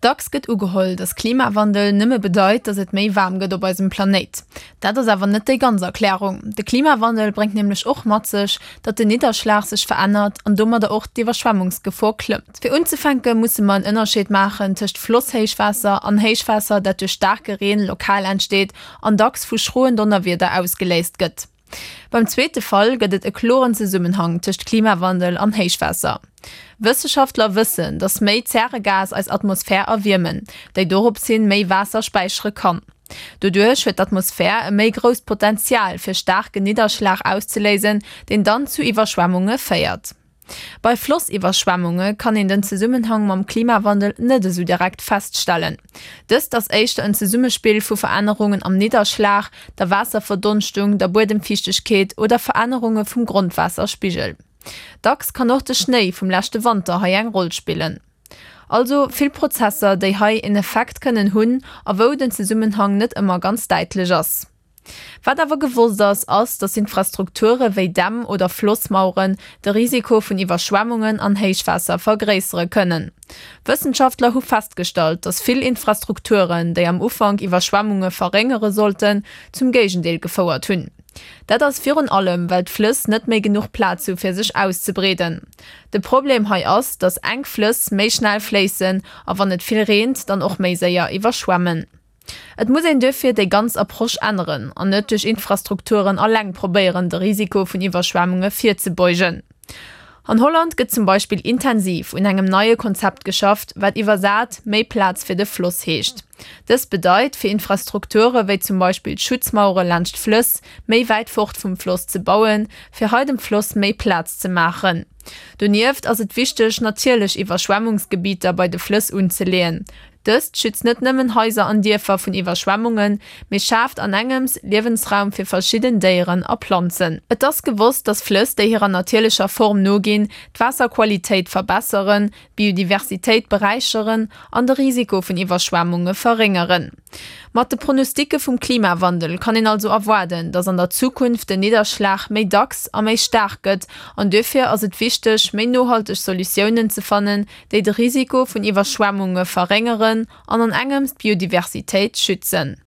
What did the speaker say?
Dacks gëtt ugeholl, datt Klimawandel nëmme bedeit, datt et méi waarm gëtt op eisem Planéit. Dat ass awer net déi ganz Erklärung. De Klimawandel bréngt nämlech och mat sech, datt den Nidderschlag sech verännert an domadder och d'Iwwerschwemmungsgefor klëmmt. Fir unzefänke musse mer en Ënnerscheed maachen tëscht Flosshéichwaasser an Héichwaasser, dat duerch staarke Reen lokal entsteet an dacks vu schroen Donnerwieder ausgeléist gëtt. Beim zweete Fall gëtt et e kloren Zesummenhang tëscht Klimawandel an Héichwaasser. Wësseschaftler wëssen, datt méi Zäregas eis Atmosphär erwiermen, déi dorops hin méi Waasser späichere kann. Doduerch huet d'Atmosphär e méi grousst Potenzial fir staarken Nidderschlag auszeléisen, deen dann zu Iwwerschwemmunge féiert. Bei Flossiwwerschwemmunge kann een den Zesummenhang mam Klimawandel net esou direkt feststellen. Dëst ass éischter en Zesummespill vu Verännerungen am Nidderschlag, der Waasserverdonschtung, der Buedemfiichtegkeet oder Verännerunge vum Grondwaasserspigel. Dacks kann och de Schnéi vum leschte Wanter hei eng Roll spillen. Also vill Prozesser, déi hei en Effekt kënnen hunn a wou den Zesummenhang net ëmmer ganz däitlech ass. Wat awer gewosst ass, ass, datt Infrastrukture wéi Dämm oder Flossmaueren de Risiko vun Iwwerschwemmungen an Héichwaasser vergréissere kënnen. Wëssenschaftler hu festgestallt, datt vill Infrastrukturen, déi am Ufank Iwwerschwemmunge verréngere sollten, zum Géigendeel gefouert hunn. Dat ass virun allem, well d'Flëss net méi genuch Plaz hu fir sech auszebreeden. De Problem hei ass, datt enk Flëss méi schnell fléissen a wann et vill reent, dann och méi séier iwwerschwemmen. Et muss een duerfir déi ganz Approche änneren an net duerch Infrastrukturen alleng probéieren, de Risiko vun Iwwerschwemmunge virzebeugen. An Holland gëtt zum Beispill intensiv un engem neie Konzept geschafft, wat iwwersat méi Plaz fir de Floss heescht. Dëst bedeit, fir Infrastrukture wéi zum Beispill Schutzmauere laanscht Flëss méi wäit fort vum Floss ze bauen, fir hei dem Floss méi Plaz ze maachen. Donieft ass et wichteg, natierlech Iwwerschwemmungsgebieter bei de Flëss unzeleeën. Dëst schützt net nëmmen Haiser an Dierfer vun Iwwerschwemmungen, mee schaaft an engems Liewensraum fir verschidden Déieren a Planzen. Et ass gewosst, dass Flëss, déi hirer natierlecher Form noginn, d'Waasserqualitéit verbesseren, d'Biodiversitéit beräicheren an de Risiko vun Iwwerschwemmunge verréngeren. Mat de Pronosticke vum Klimawandel kann een also erwaarden, dass an der Zukunft den Nidderschlag méi dacks a méi staark gëtt an duerfir ass et wichteg, méi nohalteg Solutiounen ze fannen, déi de Risiko vun Iwwerschwemmunge verréngeren an an engems d'Biodiversitéit schützen.